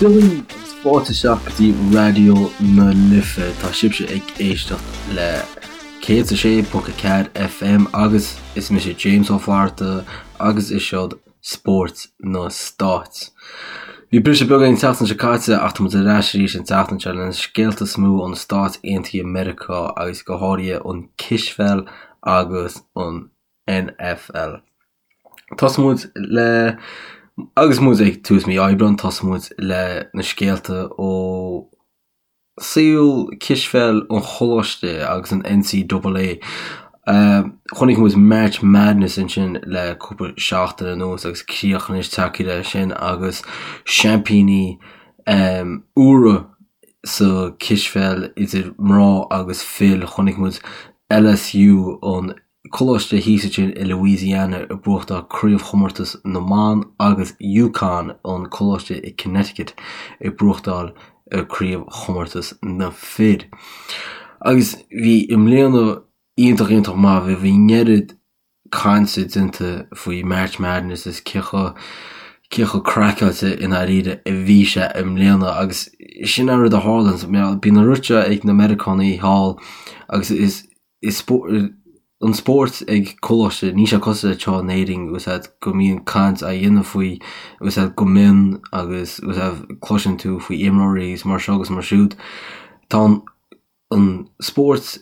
Dia daoibh agus fáilte isteach go dtí Raidió na Life. Tá sibhse ag éisteacht le 106.4 FM agus is mise James Ó Flatharta agus is seod Spórt na Stáit. Bhí briseadh beag an tseachtain seo caite ach tá muid ar ais arís an tseachtain seo le na scéalta is mó ó na Stáit Aontaithe Meiriceá agus go háirithe an cispheil agus an NFL. Tosóidh muid le agus muid ag tús mí Aibreáin, tosóidh muid le na scéalta ó saol cispheil an choláiste agus an NCAA. Chonaic muid March Madness ansin le cúpla seachtain anuas agus críoch anois tagtha leis sin agus seaimpíní úra sa cispheil idir mná agus fir. Chonaic muid LSU an coláiste thíos ansin i Louisiana ag buachtáil craobhchomórtas na mban agus UConn, an coláiste i Connecticut, ag buachtáil craobhchomórtas na fir. Agus bhí i mbliana iontach iontach maith, bhí an oiread cainte déanta faoi March Madness is cé chomh cé chomh craiceáilte i ndáiríre a bhí sé i mbliana agus sin an rud a tharlaíonn, bíonn an rud seo ag na Meiriceánaigh thall agus is is an spórt ag coláiste, níl sé cosúil le anseo in Éirinn agus go mbíonn caint á dhéanamh faoi agus go mion agus cloiseann tú faoi imreoirí agus mar seo agus mar siúd. Tá an spórt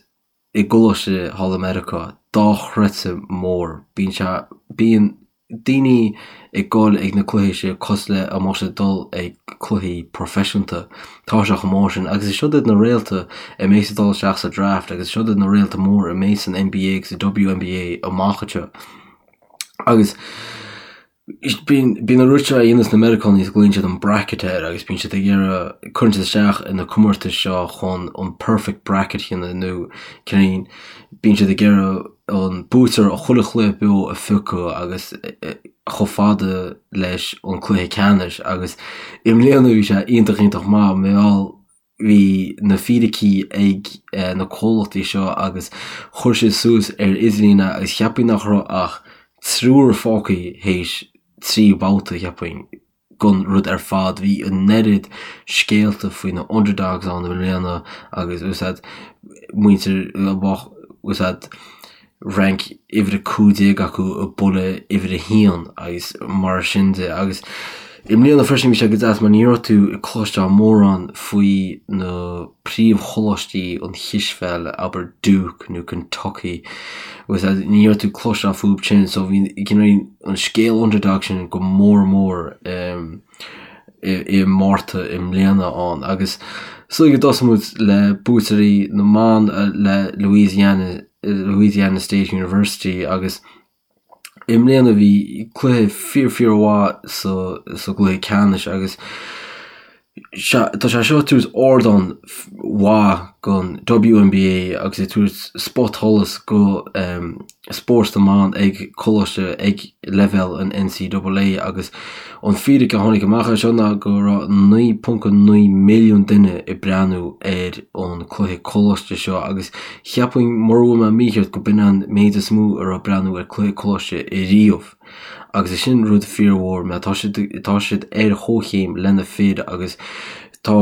i gcoláiste thall i Meiriceá dochreidte mór. Bíonn sé, bíonn daoine ag dul ag na cluichí seo cosúil le dá mbeadh siad ag dul ag cluichí proifisiúnta. Tá sé chomh mór sin agus is siod iad na réalta a mbeas ag dul isteach sa draft agus siod iad na réalta mór a mbeas san NBA agus sa WNBA amach anseo. Agus bíonn bíonn an rud seo a dhéanas na Meiriceánaigh is glaonn siad an bracket air agus bíonn siad ag iarraidh cuireann siad isteach in na comórtais seo chun an perfect bracket a dhéanamh nó cineál bíonn siad ag iarraidh an buaiteoir ó chuile chluiche beo a phiocadh agus chomh fada leis an cluiche ceannais agus i mbliana bhí sé iontach iontach maith mar gheall bhí na fíricí ag na comhlachtaí seo agus chuir siad suas ar idirlíon é agus cheapfainn nach raibh ach triúr fágtha théis 3 babhta cheapfainn. gon rud ar fad. Bhí an oiread scéalta faoi na underdogs ann i mbliana agus úsáid muintir úsáid rank uimhir 15 acu ag bualadh uimhir 1 agus mar sin de agus i mbliana freisin bhí sé go deas mar ní raibh tú ag cloisteáil mórán faoi na príomhcholáistí an chispheil, abair Duke nó Kentucky agus ní raibh tú ag cloisteáil fúthu sin so bhí an scéal underdog sin go mór mór i Márta i mbliana ann agus so go dtosóidh muid le buaiteoirí na mban le Louisiana Louisiana State University agus i mbliana bhí cluiche fíor fíor mhaith sa sa gcluiche ceannais agus Tá sé seo ag tabhairt ardán mhaith don WNBA agus ag tabhairt spotsholas go spórt na mban ag coláiste ag leibhéal an NCAA agus an fíric a tháinig amach as seo ná go raibh 9.9 milliún duine ag breathnú ar an cluiche coláiste seo agus cheapfainn mura bhfuil mé mícheart go b'in an méid is mó a raibh ag breathnú ar cluiche coláiste riamh. Agus is sin rud fíormhór mar tá siad tá siad ar chomhchéim le na fir agus tá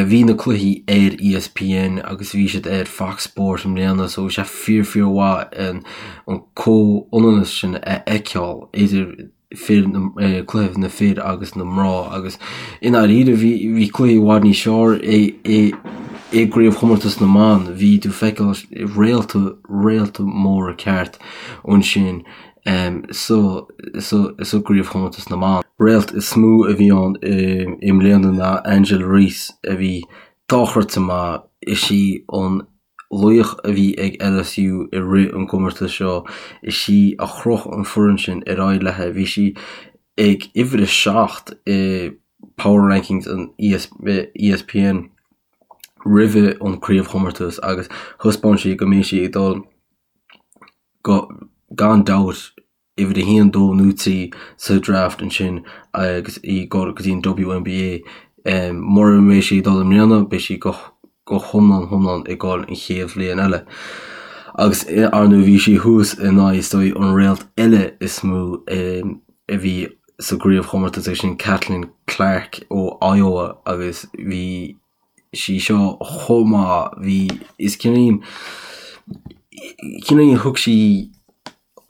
bhí na cluichí ar ESPN agus bhí siad ar Fox Sport i mbliana so bhí sé fíor fíor mhaith an an comhionannas sin a fheiceáil idir fir na cluiche na fir agus na mná agus i ndáiríre bhí bhí cluichí i bhfad níos fearr i i i gcraobhchomórtas na mban bhí tú ag feiceáil réalta réalta móra ceart ansin sa sa gcraobhchomórtas na mban. Réalt is mó a bhí ann i mbliana ná Angel Reese a bhí dochreidte maith. Is í an laoch a bhí ag LSU i rith an gcomórtais seo. Is í a chroch an foireann sin ar aghaidh léi. Bhí sí ag uimhir a 7 i Power Rankings an ESPN roimhe an craobhchomórtas agus thaispeáin sí go mbeidh sí ag dul go, gan dabht, uimhir a haon, dó nó trí sa draft ansin agus í ag dul go dtí an WNBA. Mura mbeidh sí ag dul i mbliana, beidh sí go go hiomlán hiomlán ag dul an chéad bhliain eile. Agus ar ndóigh bhí sí thuas in aghaidh is dóigh an réalt eile is mó a bhí. sa gcraobhchomórtas agus sin Caitlin Clark ó Iowa agus bhí sí seo chomh maith, bhí, is cineál, cineál thug sí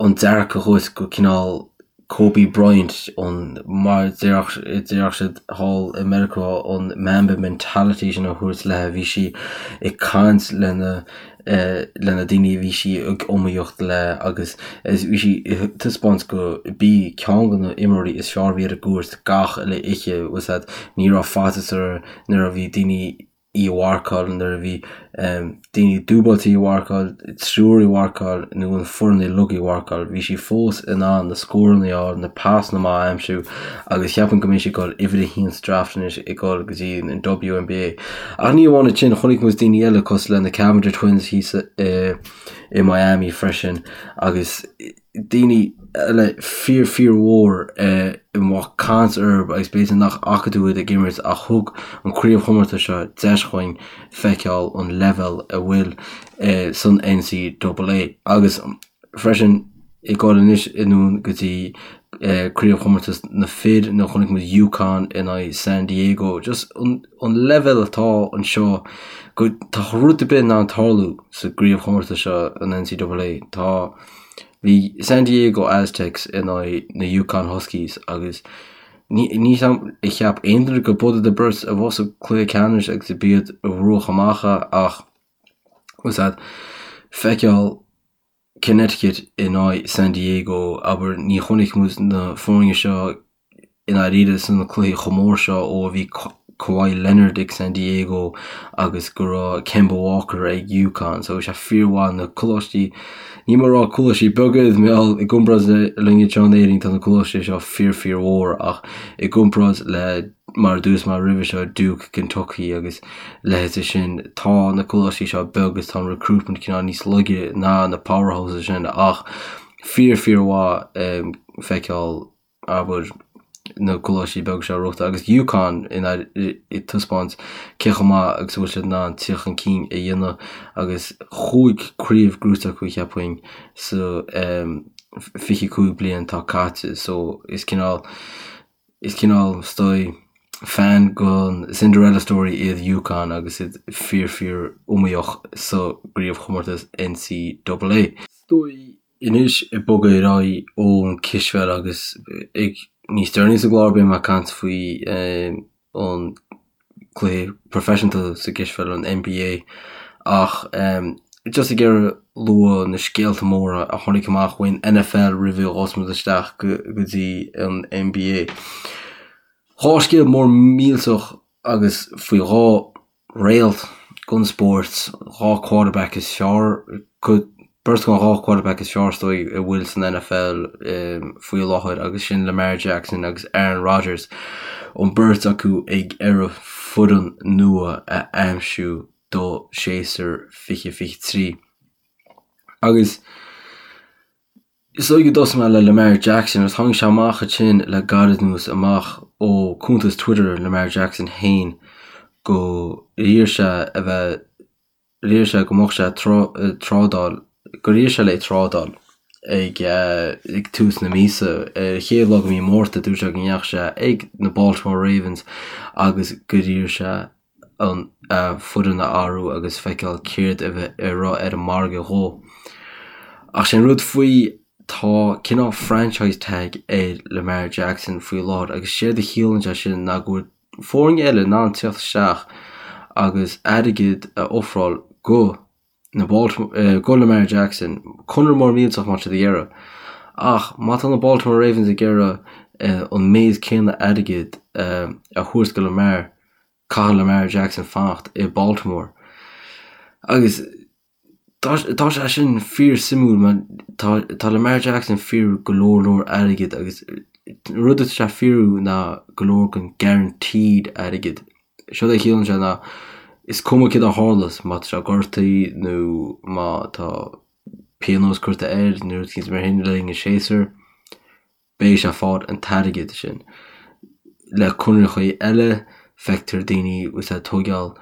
an dearcadh dhuit go cineál Kobe Bryant, an, mar a déarfadh siad thall i Meiriceá, an Mamba mentality sin a thabhairt léi, bhí sí ag caint lena le na daoine a bhí sí ag iomaíocht le agus bhí sí ag taispeáint go b'í ceann de na imreoirí is fearr a bhí ar an gcúirt gach uile oíche, bhfuil 's a'd, ní raibh faitíos uirthi nuair a bhí daoine í a mharcáil, nuair a bhí daoine dúbailte í a mharcáil, triúr í a mharcáil nó an foireann uilig í a mharcáil, bhí sí fós in ann na scóranna a fháil, na pasanna maith a aimsiú agus cheapfainn go mbeidh sí ag dul uimhir a haon sa draft anois ag dul go dtí an WNBA. Ach ní amháin sin, chonaic muid daoine eile cosúil le na Cavinder Twins thíos i Miami freisin agus daoine eile fíor fíor mhór a mbeadh caint orthu agus b'fhéidir nach bhfaca tú iad ag imirt ach thug an craobhchomórtas seo deis dhúinn feiceáil an leibhéal a bhfuil san NCAA agus freisin ag dul anois anonn go dtí craobhchomórtas na fir nuair a chonaic muid UConn in aghaidh San Diego. Just an leibhéal atá anseo go tá rud ar bith in ann tarlú sa gcraobhchomórtas seo an NCAA. Tá bhí San Diego Aztecs in aghaidh na UConn Huskies agus ní ní ar cheap aon duine go b'iad an bheirt a bheadh sa cluiche ceannais agus b'iad a bhuaigh amach é ach bhfuil 's a'd feiceáil Connecticut in aghaidh San Diego, abair, ní chonaic muid na foirne seo i ndáiríre sna cluichí chomh mór seo ó a bhí Kawhi Leonard ag San Diego agus go raibh Kemba Walker ag UConn. So bhí sé fíormhaith na coláistí, níl mé ag rá coláistí beaga iad mar gheall i gcomparáid le linn anseo in Éirinn tá na coláistí seo fíor fíor mhór ach i gcomparáid le mar a dúirt mé roimhe seo Duke, Kentucky agus leithéidí sin. Tá na coláistí seo beag agus tá an recruitment cineál níos laige ná na powerhouses sin ach fíor fíor mhaith feiceáil abair na coláistí beaga seo ag rith agus UConn in ag taispeáint cé chomh maith agus a bhfuil siad in ann tíocht chun cinn a dhéanamh agus chúig craobh gnóite acu cheapfainn sa 25 bliain atá caite so is cineál Is cineál, is dóigh, fan den Cinderella story iad UConn agus iad fíor fíor iomaíoch sa gcraobhchomórtas NCAA. Is dóigh anois ag bogadh ar aghaidh ón cispheil agus ag níos deireanaí sa gclár beidh mé ag caint faoi an cluiche proifisiúnta sa gcispheil, an NBA, ach just ag iarraidh lua na scéalta móra a tháinig amach ón NFL roimh a ghabhfas muid isteach go dtí an NBA. Dhá scéal mór millteach agus faoi dhá réalt den spórt, dhá quarterback is fearr, Beirt den dhá quarterback is fearr is dóigh a bhfuil san NFL faoi láthair agus sin Lamar Jackson agus Aaron Rodgers, an beirt acu ag iarraidh foireann nua a aimsiú do séasúr 2023. Agus is dóigh go dtosóidh mé le Lamar Jackson agus tháinig sé amach ansin le gairid anuas amach ó cuntas Twitter Lamar Jackson féin go iarr sé a bheith D'iarr sé go mbeadh sé ag trádáil, gur iarr sé le trádáil ag ag tús na míosa. Ar an chéad lá de mhí Márta dúirt sé go ndeachaigh sé ag na Baltimore Ravens agus gur iarr sé an a foireann a athrú agus feiceáil céard a bheith a raibh ar an margadh dhó. Ach sé an rud faoi tá cineál franchise tag ar Lamar Jackson faoi láthair agus séard a chiallaíonn sé sin ná go bhfuil foirne eile in ann teacht isteach agus airgead a ofráil go na go Lamar Jackson, conradh mór millteach má tá siad ag iarraidh. Ach má tá na Baltimore Ravens ag iarraidh an méid céanna airgid a thabhairt go Lamar, caithfidh Lamar Jackson fanacht i Baltimore. Agus Tá sé sin fíor suimiúil mar tá Lamar Jackson fíorú go leor leor airgid agus rud atá sé fíorú ná go leor den guaranteed airgid. Séard a chiallaíonn sé ná is cuma céard a tharlas má tá sé gortaithe nó má tá pionós curtha air nó rud éicint mar sin le linn an séasúir. beidh sé ag fáil an t-airgead sin. Le conarthaí eile, feictear daoine agus ag tógáil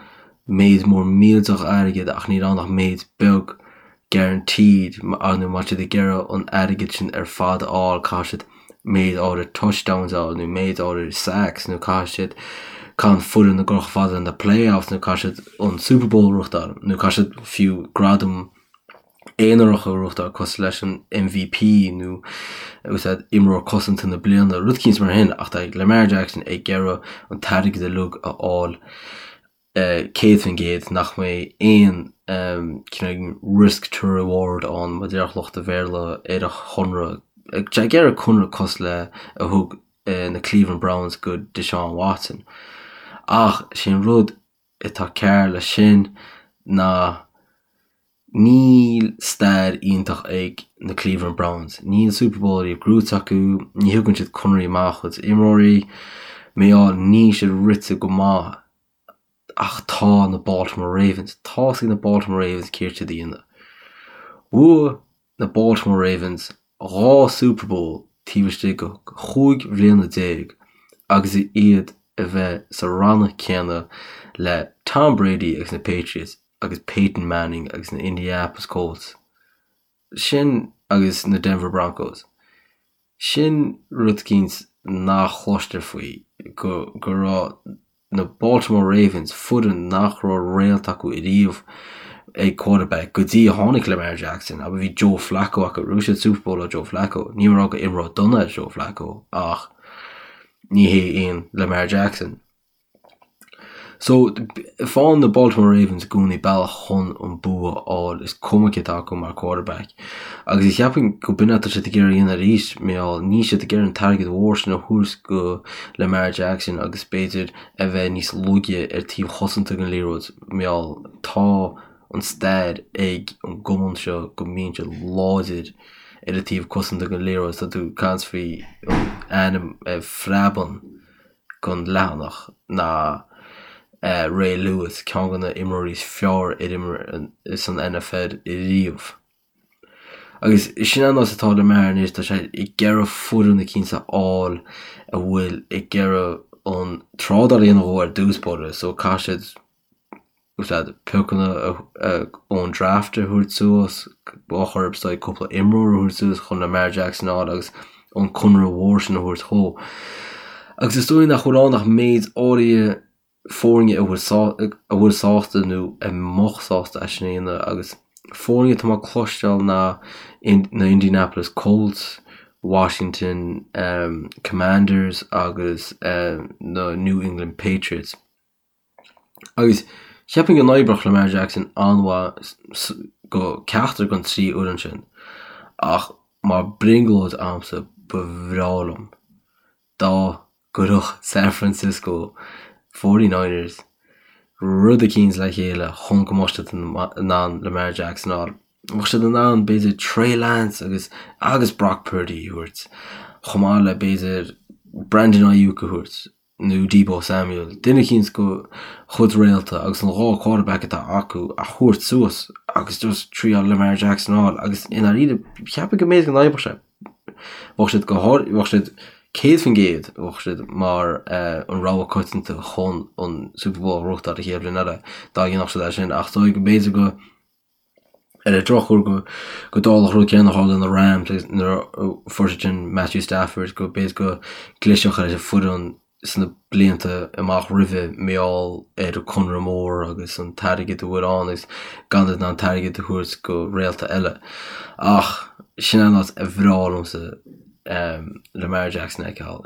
méid mór millteach airgid ach níl ann ach méid beag guaranteed nó má tá siad ag iarraidh an airgead sin ar fad a fháil caithfidh siad. méid áirid touchdowns a fháil nó méid áirid sacks nó caithfidh siad caithfidh an foireann a ghabháil chomh fada na playoffs nó caithfidh siad an Super Bowl a ghnóthachtáil nó caithfidh siad fiú gradam aonarach a ghnóthachtáil cosúil leis an MVP nó úsáid imreoir cosanta na bliana, rud eicínt mar sin ach tá Lamar Jackson ag iarraidh an t-airgead uilig a fháil 100% nach mbeidh aon cineál risk to reward ann mar a déarfadh lucht an Bhéarla ar a chonradh. Tá sé ag iarraidh conradh cosúil le a thug na Cleveland Browns go Deshaun Watson. Ach sé an rud atá cearr leis sin ná níl stair iontach ag na Cleveland Browns. Níl Super Bowl ariamh gnóite acu, ní thugann siad conarthaí maith dá gcuid imreoirí, mar gheall níl siad rite go maith Ach tá na Baltimore Ravens, tá's ag na Baltimore Ravens céard siad a dhéanamh. Bhuaigh na Baltimore Ravens 2 Super Bowl taobh istigh de chúig bhliana déag agus iad a bheith sa rannach céanna le Tom Brady agus na Patriots agus Peyton Manning agus na Indianapolis Colts. Sin agus na Denver Broncos. Sin rud eicínt nach chloistear faoi, go go raibh na Baltimore Ravens, foireann nach raibh réalt acu ariamh ag quarterback go dtí a tháinig Lamar Jackson, abair bhí Joe Flacco acu, bhuaigh siad Super Bowl le Joe Flacco, níl mé ag rá gur imreoir dona é Joe Flacco ach ní hé aon Lamar Jackson. So, faigheann na Baltimore Ravens i gcónaí bealach chun an bua a fháil, is cuma cé atá acu mar quarterback. Agus cheapfainn go b'in atá siad ag iarraidh a dhéanamh arís, mar gheall níl siad ag iarraidh an t-airgead mhór sin a thabhairt go Lamar Jackson agus b'fhéidir a bheith níos laige ar taobh chosanta den liathróid, mar gheall tá an stair ag an gcumann seo go mbíonn siad láidir ar an taobh cosanta den liathróid, tá tú ag caint faoi an ainm a phreabann. den leathanach ná Ray Lewis, ceann de na imreoirí is fearr ar imir san NFL riamh. Agus sin an nós atá Lamar anois, tá sé ag iarraidh foireann eicínt a fháil a bhfuil ag iarraidh an trádáil a dhéanamh dhó ar dtús báire, so caithfidh siad úsáid piocanna ón draft a thabhairt suas, bá chorp is dóigh cúpla imreoir a thabhairt suas chun Lamar Jackson a fháil agus an conradh mhór sin a thabhairt dhó. Agus is dóigh nach bhfuil ann ach méid áirithe foirne a bhfuil sásta nó a mbeadh sásta é sin a dhéanamh agus foirne atá mé ag cloisteáil ná na Indianapolis Colts, Washington Commanders agus na New England Patriots. Agus cheapfainn go n-oibreodh Lamar Jackson an-mhaith go ceachtar den trí fhoireann sin ach mar brionglóid a'msa ba bhreá liom dá gcuirfeadh San Francisco Forty Niners rud eicínt le chéile chun go mbeadh siad in ann Lamar Jackson a fháil. Bheadh siad in ann b'fhéidir Trey Lance agus agus Brock Purdy a thabhairt chomh maith le b'fhéidir Brandon Aiyuk a thabhairt. nó Deebo Samuel, duine eicínt dá chuid réalta agus an 2 quarterback atá acu a thabhairt suas agus just triail Lamar Jackson a fháil agus i ndáiríre cheapfainn go mb'fhéidir go n-oibreodh sé. Bheadh siad go háir bheadh siad 100% bheadh siad mar an rogha coitianta chun an Super Bowl a ghnóthachtáil an chéad bhliain eile dá dhéanfadh siad é sin ach is dóigh go mb'fhéidir go Ar an drochuair go dtarlódh an rud céanna a tharla do na Rams agus nuair a fuair siad sin Matthew Stafford go b'fhéidir go gclisfeadh ar an foireann sna blianta amach roimhe mar gheall ar an conradh mór agus an t-airgead a bhfuil ann agus gan iad in ann an t-airgead a thabhairt go réalta eile. Ach sin an áit a bhreá liomsa. Lamar Jackson a fheiceáil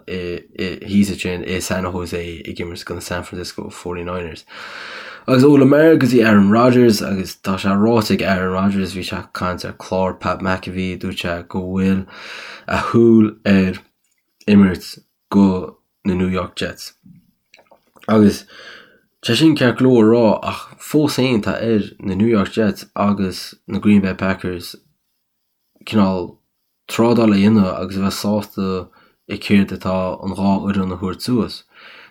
thíos ansin i San Jose ag imirt do na San Francisco 49ers. Agus ó Lamar go dtí Aaron Rodgers agus tá sé ráite ag Aaron Rodgers, bhí sé ag caint ar chlár Pat McAfee, dúirt sé go bhfuil a shúil ar imirt go na New York Jets. Agus tá sin ceart go leor a rá ach fós féin tá ar na New York Jets agus na Green Bay Packers cineál trádáil a dhéanamh agus a bheith sásta i céard atá an dhá fhoireann a thabhairt suas.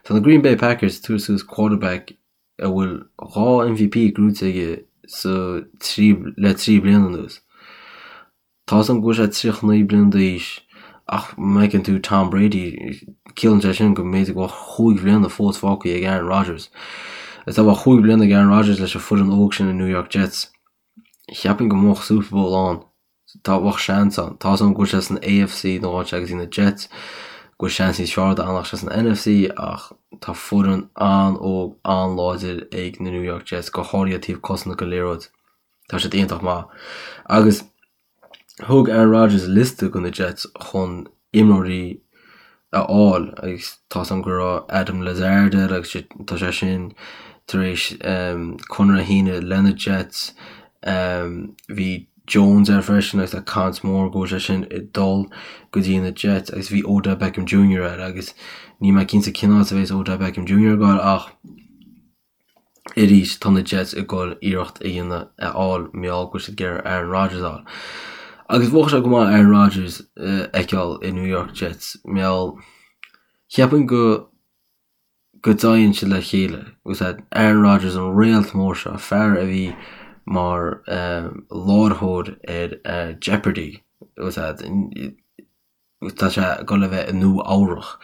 Tá na Green Bay Packers ag tabhairt suas quarterback a bhfuil 2 MVP gnóite aige sa trí le 3 bliana anuas. Tá 'fhios a'm go bhfuil sé 39 bliana d'aois ach má fheiceann tú Tom Brady ciallaíonn sé sin go mb'fhéidir go bhfuil chúig bhliana fós fágtha ag Aaron Rodgers. Is dá mbeadh chúig bliana ag Aaron Rodgers leis an foireann óg sin na New York Jets, cheapfainn go mbeadh Super Bowl ann. Tá, bheadh seans ann. Tá's agam go bhfuil sé san AFC nó áit agus na Jets, go bhfuil seans níos fearr dó fanacht sé san NFC ach tá foireann an-óg, an-láidir ag na New York Jets, go háirithe taobh cosanta den liathróid. Tá siad iontach maith. Agus thug Aaron Rodgers liosta go na Jets chun imreoirí a fháil agus tá's agam go raibh Allen Lazard air agus tá sé sin tar éis conradh a shíneadh le na Jets. Bhí Jones air freisin agus tá caint mór go bhfuil sé sin ag dul go dtí na Jets agus bhí Odell Beckham Jr air agus níl mé cinnte cén áit a bheas Odell Beckham Jr ag dul ach Arís, tá na Jets ag dul iarracht a dhéanamh a fháil mar gheall go bhfuil siad ag iarraidh Aaron Rodgers a fháil. Agus bheadh sé go maith Aaron Rodgers a fheiceáil i New York Jets mar gheall cheapfainn go go dtéann siad le chéile. Agus Aaron Rodgers an réalt mór seo, fear a bhí mar láithreoir ar Jeopardy! Agus Tá sé ag dul a bheith i Nua Eabhrach.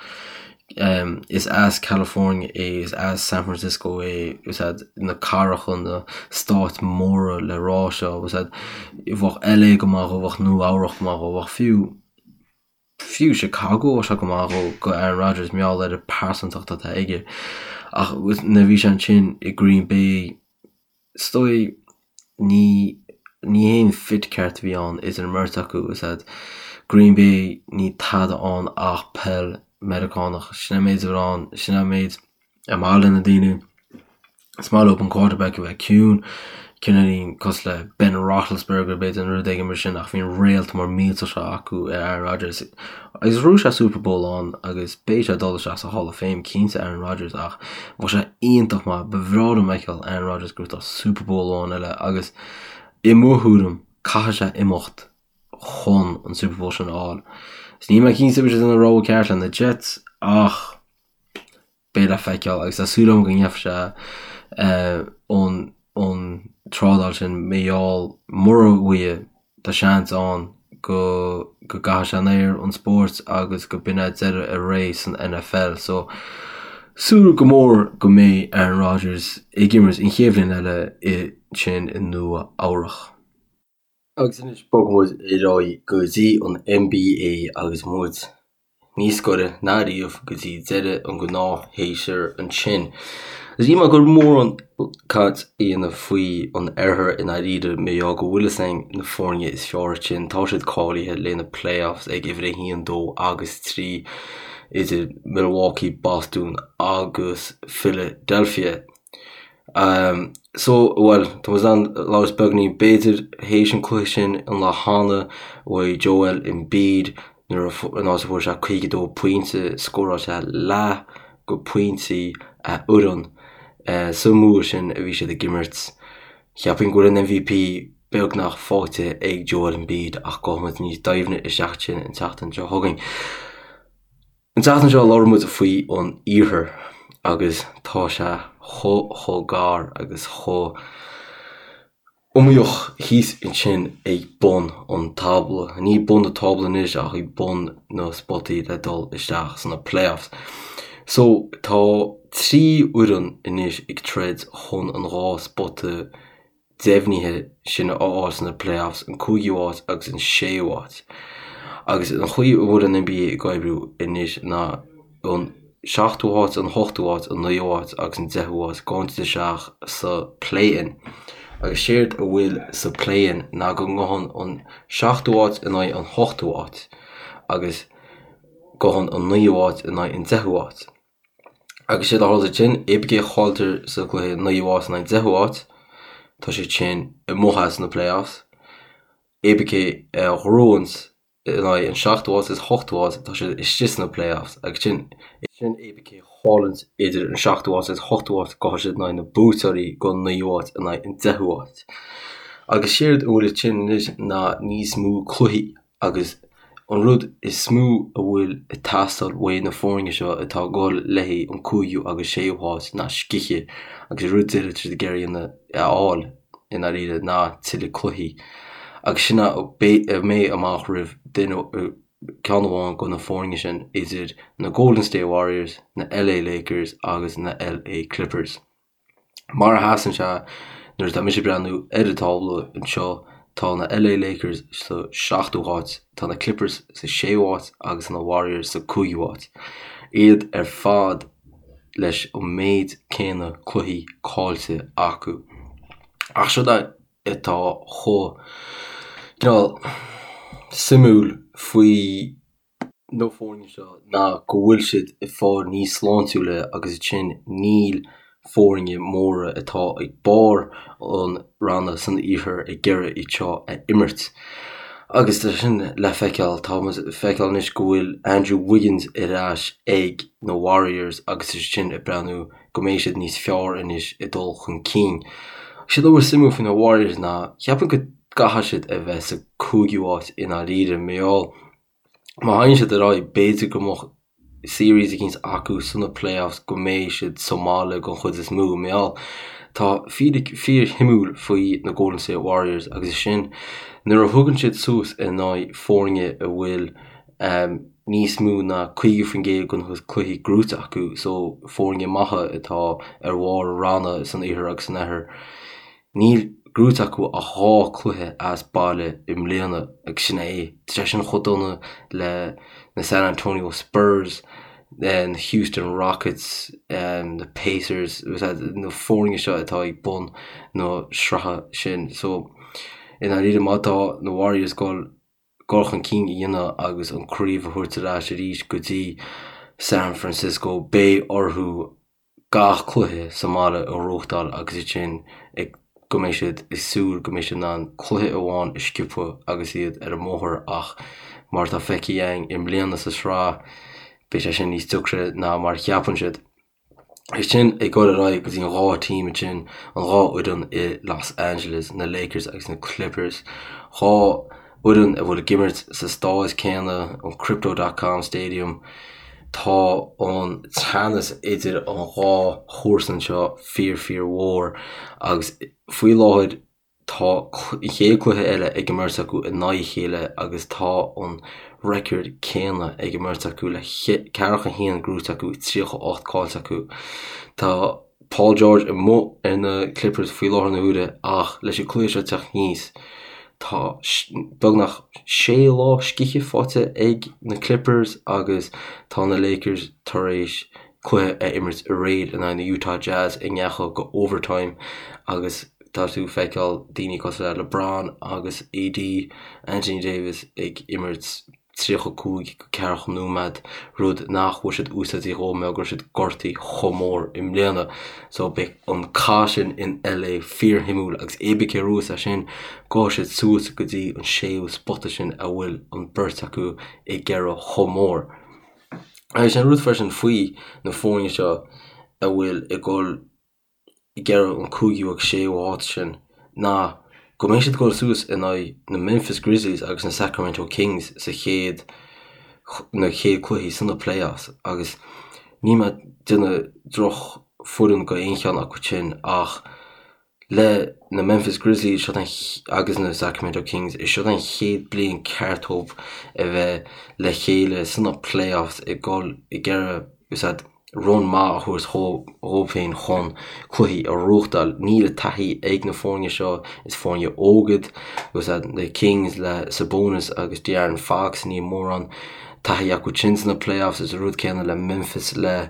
Is as California é, is as San Francisco é, is iad na cathracha, na stáit móra le rá seo, is iad, bheadh LA go maith dhó, bheadh Nua Eabhrach go maith dhó, bheadh fiú, fiú Chicago bheadh sé go maith dhó, go Aaron Rodgers, mar gheall ar an pearsantacht atá aige. Ach nuair a bhí sé ansin i Green Bay, Is dóigh, ní ní haon fit ceart a bhí ann idir an mbeirt acu. Is ea, Green Bay, ní tada ann ach peil Meiriceánach. Sin é an méid a bhí ann, sin é an méid ar maith le na daoine. Is maith leo an quarterback a bheith ciúin, cineáilín cosúil le Ben Roethlisberger b'fhéidir nó rud éigin mar sin ach bhí an réalt mór millteach seo acu i Aaron Rodgers. Agus bhuaigh sé Super Bowl ann agus beidh sé ag dul isteach sa Hall of Fame cinnte Aaron Rodgers ach bheadh sé iontach maith, ba bhreá liom fheiceáil Aaron Rodgers ag gnóthachtáil Super Bowl amháin eile agus i mo thuairim caithfidh sé imeacht chun an Super Bowl sin a fháil. Is níl mé cinnte an bhfuil sé an rogha ceart le na Jets ach beidh le feiceáil agus tá súil agam go ndéanfaidh sé an an trádáil sin mar gheall mura bhfaighe tá seans ann go go gcaithfidh sé an aer an spóirt agus go b'in é deireadh a ré san NFL so súil go mór go mbeidh Aaron Rodgers ag imirt an chéad bhliain eile ansin i Nua Eabhrach. Agus anois bogfaidh muid ar aghaidh go dtí an NBA agus muid níos gaire ná riamh go dtí deireadh an gnáthshéasúir ansin. Is níl mé ag dul mórán caint a dhéanamh faoi an oirthear i ndáiríre mar gheall go bhfuil fhios againn na foirne is fearr ansin, tá siad cáilithe le na playoffs ag uimhir 1, 2 agus 3 idir Milwaukee, Boston agus Philadelphia. So, bhuel, tá muid in ann labhairt beagainín b'fhéidir théis an cluiche sin an lá cheana uaidh Joel Embiid nuair a an áit a fuair sé 52 pointe, scóráil sé leath go pointí a fhoireann sa mbua sin a bhí siad ag imirt. Cheapfainn go bhfuil an MVP beagnach faighte ag Joel Embiid ach gabhfaidh muid níos doimhne isteach ansin an tseachtain seo chugainn. An tseachtain seo labhair muid faoi an iarthar agus tá sé chomh chomh gar agus chomh iomaíoch thíos ansin ag bun an tábla. Ní bun na tábla anois ach ag bun na spotaí le dul isteach sna playoffs. So tá 3 fhoireann anois ag troid chun an 2 spota deimhnithe sin a fháil sna playoffs, an cúigiú háit agus an séú háit. Agus an chaoi a bhfuil an NBA ag oibriú anois ná an seachtú háit, an hochtú háit, an naoú háit agus an deichiú háit, gabhann siad isteach sa play-in. Agus séard a bhfuil sa play-in ná go ngabhann an seachtú háit in aghaidh an hochtú háit agus gabhann an naoú háit in aghaidh an deichiú háit. Agus séard a tharla ansin, cibé cé a chailltear sa gcluiche naoú háit in aghaidh an deichiú háit, tá siad sin amuigh as na playoffs. Cibé cé a ghnóthaíonn in aghaidh an seachtú háit agus hochtú háit, tá siad istigh sna playoffs. Agus sin, sin cibé cé a chailleann idir an seachtú háit agus hochtú háit, gabhfaidh siad in aghaidh na buaiteoirí don naoú háit in aghaidh an deichiú háit. Agus séard a bhfuil ansin anois ná níos mó cluichí Agus an rud is mó a bhfuil ag teastáil uaidh na foirne seo atá ag dul le haghaidh an cúigiú agus séú háit ná scíth agus an rud deiridh atá siad ag iarraidh a fháil i ndáiríre ná tuilleadh cluichí. Agus sin a mbeidh amach roimh duine, ceann amháin de na foirne sin idir na Golden State Warriors, na LA Lakers agus na LA Clippers. Mar a sheasann sé nuair atá mise ag breathnú ar an tábla anseo Tá na LA Lakers sa seachtú háit, tá na Clippers sa séú háit agus na Warriors sa cúigiú háit. Iad ar fad leis an méid céanna cluichí caillte acu. Ach seod é atá chomh cineál suimiúil faoi na foirne seo ná go bhfuil siad ag fáil níos sláintiúla agus ansin níl foirne móra atá ag barr an ranna san iarthar ag iarraidh iad seo a imirt. Agus tá sin le feiceáil, tá muid ag feiceáil anois go bhfuil Andrew Wiggins ar ais ag na Warriors agus tá sin ag breathnú go mbeidh siad níos fearr anois ag dul chun cinn. Séard atá suimiúil faoi na Warriors ná cheapfainn go gcaithfidh siad a bheith sa cúigiú háit i ndáiríre, mar gheall Má théann siad ar aghaidh, b'fhéidir go mbeadh series eicínt acu sna playoffs go mbeidh siad sa mbaile den chuid is mó. Mar gheall, tá fíric fíorshuimiúil faoi na Golden State Warriors agus is sin nuair a thugann siad suas in aghaidh foirne a bhfuil níos mó ná 50% den cluichí gnóite acu, so foirne maithe atá ar bharr ranna san iarthar agus san oirthear. Níl gnóite acu ach 2 cluiche as baile i mbliana agus sin é. Tá sé sin chomh dona le na San Antonio Spurs, na Houston Rockets, na Pacers, na foirne seo atá ag bun na sraithe sin. So, i ndáiríre má tá na Warriors ag dul dul chun cinn a dhéanamh agus an craobh a thabhairt ar ais arís go dtí San Francisco, beidh orthu gach cluiche sa mbaile a ghnóthachtáil agus ansin ag go mbeidh siad ag súil go mbeidh siad in ann cluiche amháin a sciobadh agus iad ar an mbóthar ach mar atá feicthe againn i mbliana sa sraith beidh sé sin níos deacra ná mar a cheapann siad. Ansin ag dul ar aghaidh go dtí an 2 team ansin, an 2 fhoireann i Los Angeles, na Lakers agus na Clippers. 2 fhoireann a bhfuil ag imirt sa staid céanna, an Crypto dot com Stadium. Tá an teannas idir an dhá chomharsan seo fíor fíor mhór agus faoi láthair tá an chéad cluiche eile ag an mbeirt acu in aghaidh a chéile agus tá an record céanna ag an mbeirt acu le 41 gnóite acu, 38 caillte acu. Tá Paul George amuigh ar na Clippers faoi láthair na huaire ach leis an cluiche seo teacht aníos tá beagnach sé lá scíthe faighte ag na Clippers agus tá na Lakers tar éis cluiche a imirt aréir in aghaidh na Utah Jazz a ndeachaigh go overtime agus tá tú ag feiceáil daoine cosúil le LeBron agus AD, Anthony Davis, ag imirt 35 go 40 nóiméad, rud nach bhfuil siad úsáidte dhó mar go raibh siad gortaithe chomh mór i mbliana. So beidh an cath sin in LA fíorshuimiúil agus cibé cé a bhuafas é sin, gabhfaidh siad suas go dtí an séú spota sin a bhfuil an beirt acu ag iarraidh chomh mór. Agus sin rud freisin faoi na foirne seo a bhfuil ag dul ag iarraidh an cúigiú agus séú háit sin ná go mbeidh siad ag dul suas in aghaidh na Memphis Grizzlies agus na Sacramento Kings sa chéad na chéad cluichí sna playoffs agus níl mé ag déanamh droch foireann go aon cheann acu sin ach le na Memphis Grizzlies seo agus na Sacramento Kings is seo an chéad bliain ceart dóibh a bheith le chéile sna playoffs ag dul ag iarraidh run maith a thabhairt dhóibh féin chun cluichí a ghnóthachtáil. Níl an taithí ag na foirne seo, is foirne óga iad agus na Kings le Sabonis agus De'Aaron Fox, níl mórán taithí acu sin sna playoffs. Is an rud céanna le Memphis le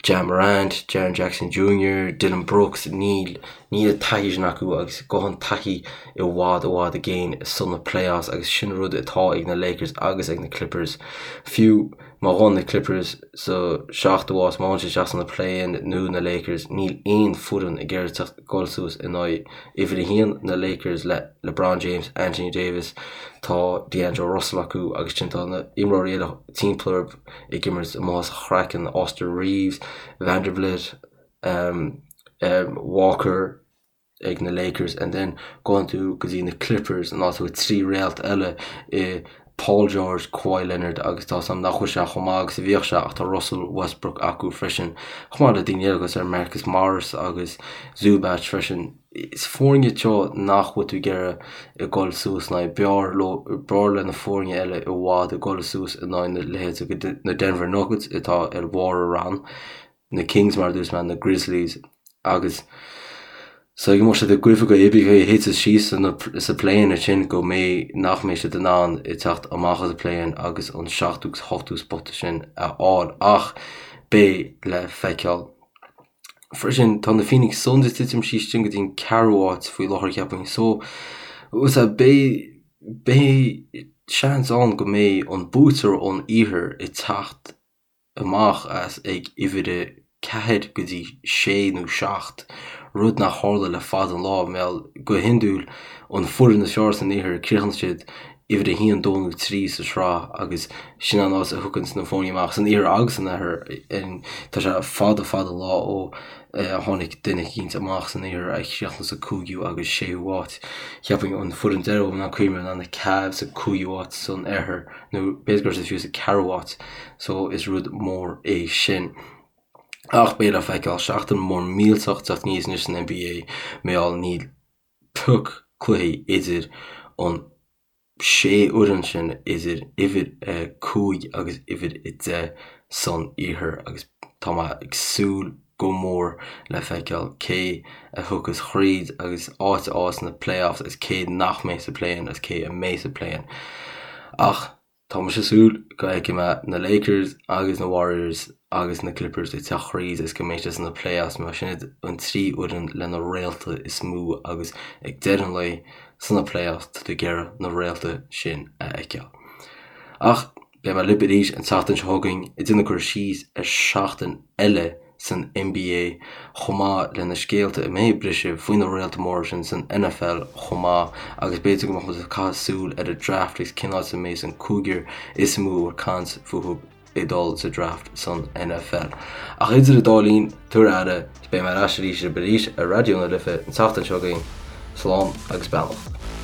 Ja Morant, Jaren Jackson Jr, Dillon Brooks, níl níl an taithí sin acu agus gabhann taithí i bhfad i bhfad i gcéin sna playoffs agus sin rud atá ag na Lakers agus ag na Clippers. Fiú Má ghabhann na Clippers sa seachtú háit, má théann siad isteach sna play-in nó na Lakers, níl aon foireann ag iarraidh teacht dul suas in aghaidh uimhir a haon na Lakers le LeBron James, Anthony Davis, tá D'Angelo Russell acu agus sin tá na imreoirí eile timpeall orthu ag imirt amuigh as a chraiceann, Austin Reaves, Vanderbilt, um, um, Walker, ag na Lakers and then gabhann tú go dtí na Clippers an áit a bhfuil 3 réalt eile i Paul George, Kawhi Leonard agus tá 's a'm nach bhfuil sé chomh maith agus a bhíodh sé ach tá Russell Westbrook acu freisin chomh maith le daoine eile cosúil le Marcus Morris agus Zubac freisin. Is foirne iad seo nach bhfuil tú ag iarraidh ag dul suas in aghaidh. B'fhearr leo, b'fhearr le na foirne eile i bhfad ag dul suas in aghaidh na leithéid na Denver Nuggets atá ar bharr an rann. na Kings mar a dúirt mé, na Grizzlies agus. So go mbeadh siad ag goimh go oibrithe a thiteas síos sa play-in ansin go mbeidh nach mbeidh siad in ann teacht amach as an play-in agus an seachtú agus ochtú spota sin a fháil ach beidh le feiceáil. Freisin tá na Phoenix Suns ag titim síos sin go dtí an ceathrú áit faoi láthair cheapfainn so beidh beidh seans ann go mbeidh an buaiteoir ón iarthar ag teacht amach as ag uimhir a 4 go dtí 6 nó 7, rud nach tharla le fada an lá, mar go hiondúil an foireann is fearr san iarthar críochnaíonn siad uimhir a 1, 2 nó 3 sa sraith agus sin an áit a thiocfainn na foirne amach san iarthar agus san oirthear. Tá sé fada fada an lá ó tháinig duine eicínt amach san iarthar a chríochnaigh sa cúigiú agus séú háit. Cheapfainn an foireann deireadh ná cuimhne ná na Cavs sa cúigiú háit san oirthear. nó b'fhéidir go raibh siad fiú sa ceathrú háit, so is rud mór é sin. Ach beidh le feiceáil, seachtain mór millteach teacht aníos anois san NBA, mar gheall níl pioc cluichí idir an sé fhoireann sin idir uimhir 5 agus uimhir 10 san iarthar agus tá mé ag súil go mór le feiceáil cé a thiocfas thríd agus áit a fháil sna playoffs agus cé nach mbeidh sa play-in agus cé a mbeidh sa play-in. Ach tá mise ag súil go bhfeicfidh mé na Lakers agus na Warriors agus na Clippers ag teacht thríd agus go mbeidh siad sna playoffs mar sin iad an trí fhoireann le na réalta is mó agus ag deireadh an lae sna playoffs tá tú ag iarraidh na réalta sin a fheiceáil. Ach Beidh mé libh arís an tseachtain seo chugainn ag déanamh cur síos ar seachtain eile san NBA chomh maith le na scéalta a mbeidh ag briseadh faoi na réalta móra sin san NFL chomh maith agus b'fhéidir go mbeadh muid ag caitheamh súil ar an draft agus cén áit a mbeidh an cúigear is mó a bhfuil caint fúthu ag dul sa draft san NFL. Ach idir an dá linn, tabhair aire, beidh mé ar ais arís arís ar Raidió na Life an tseachtain seo chugainn. Slán agus beannacht.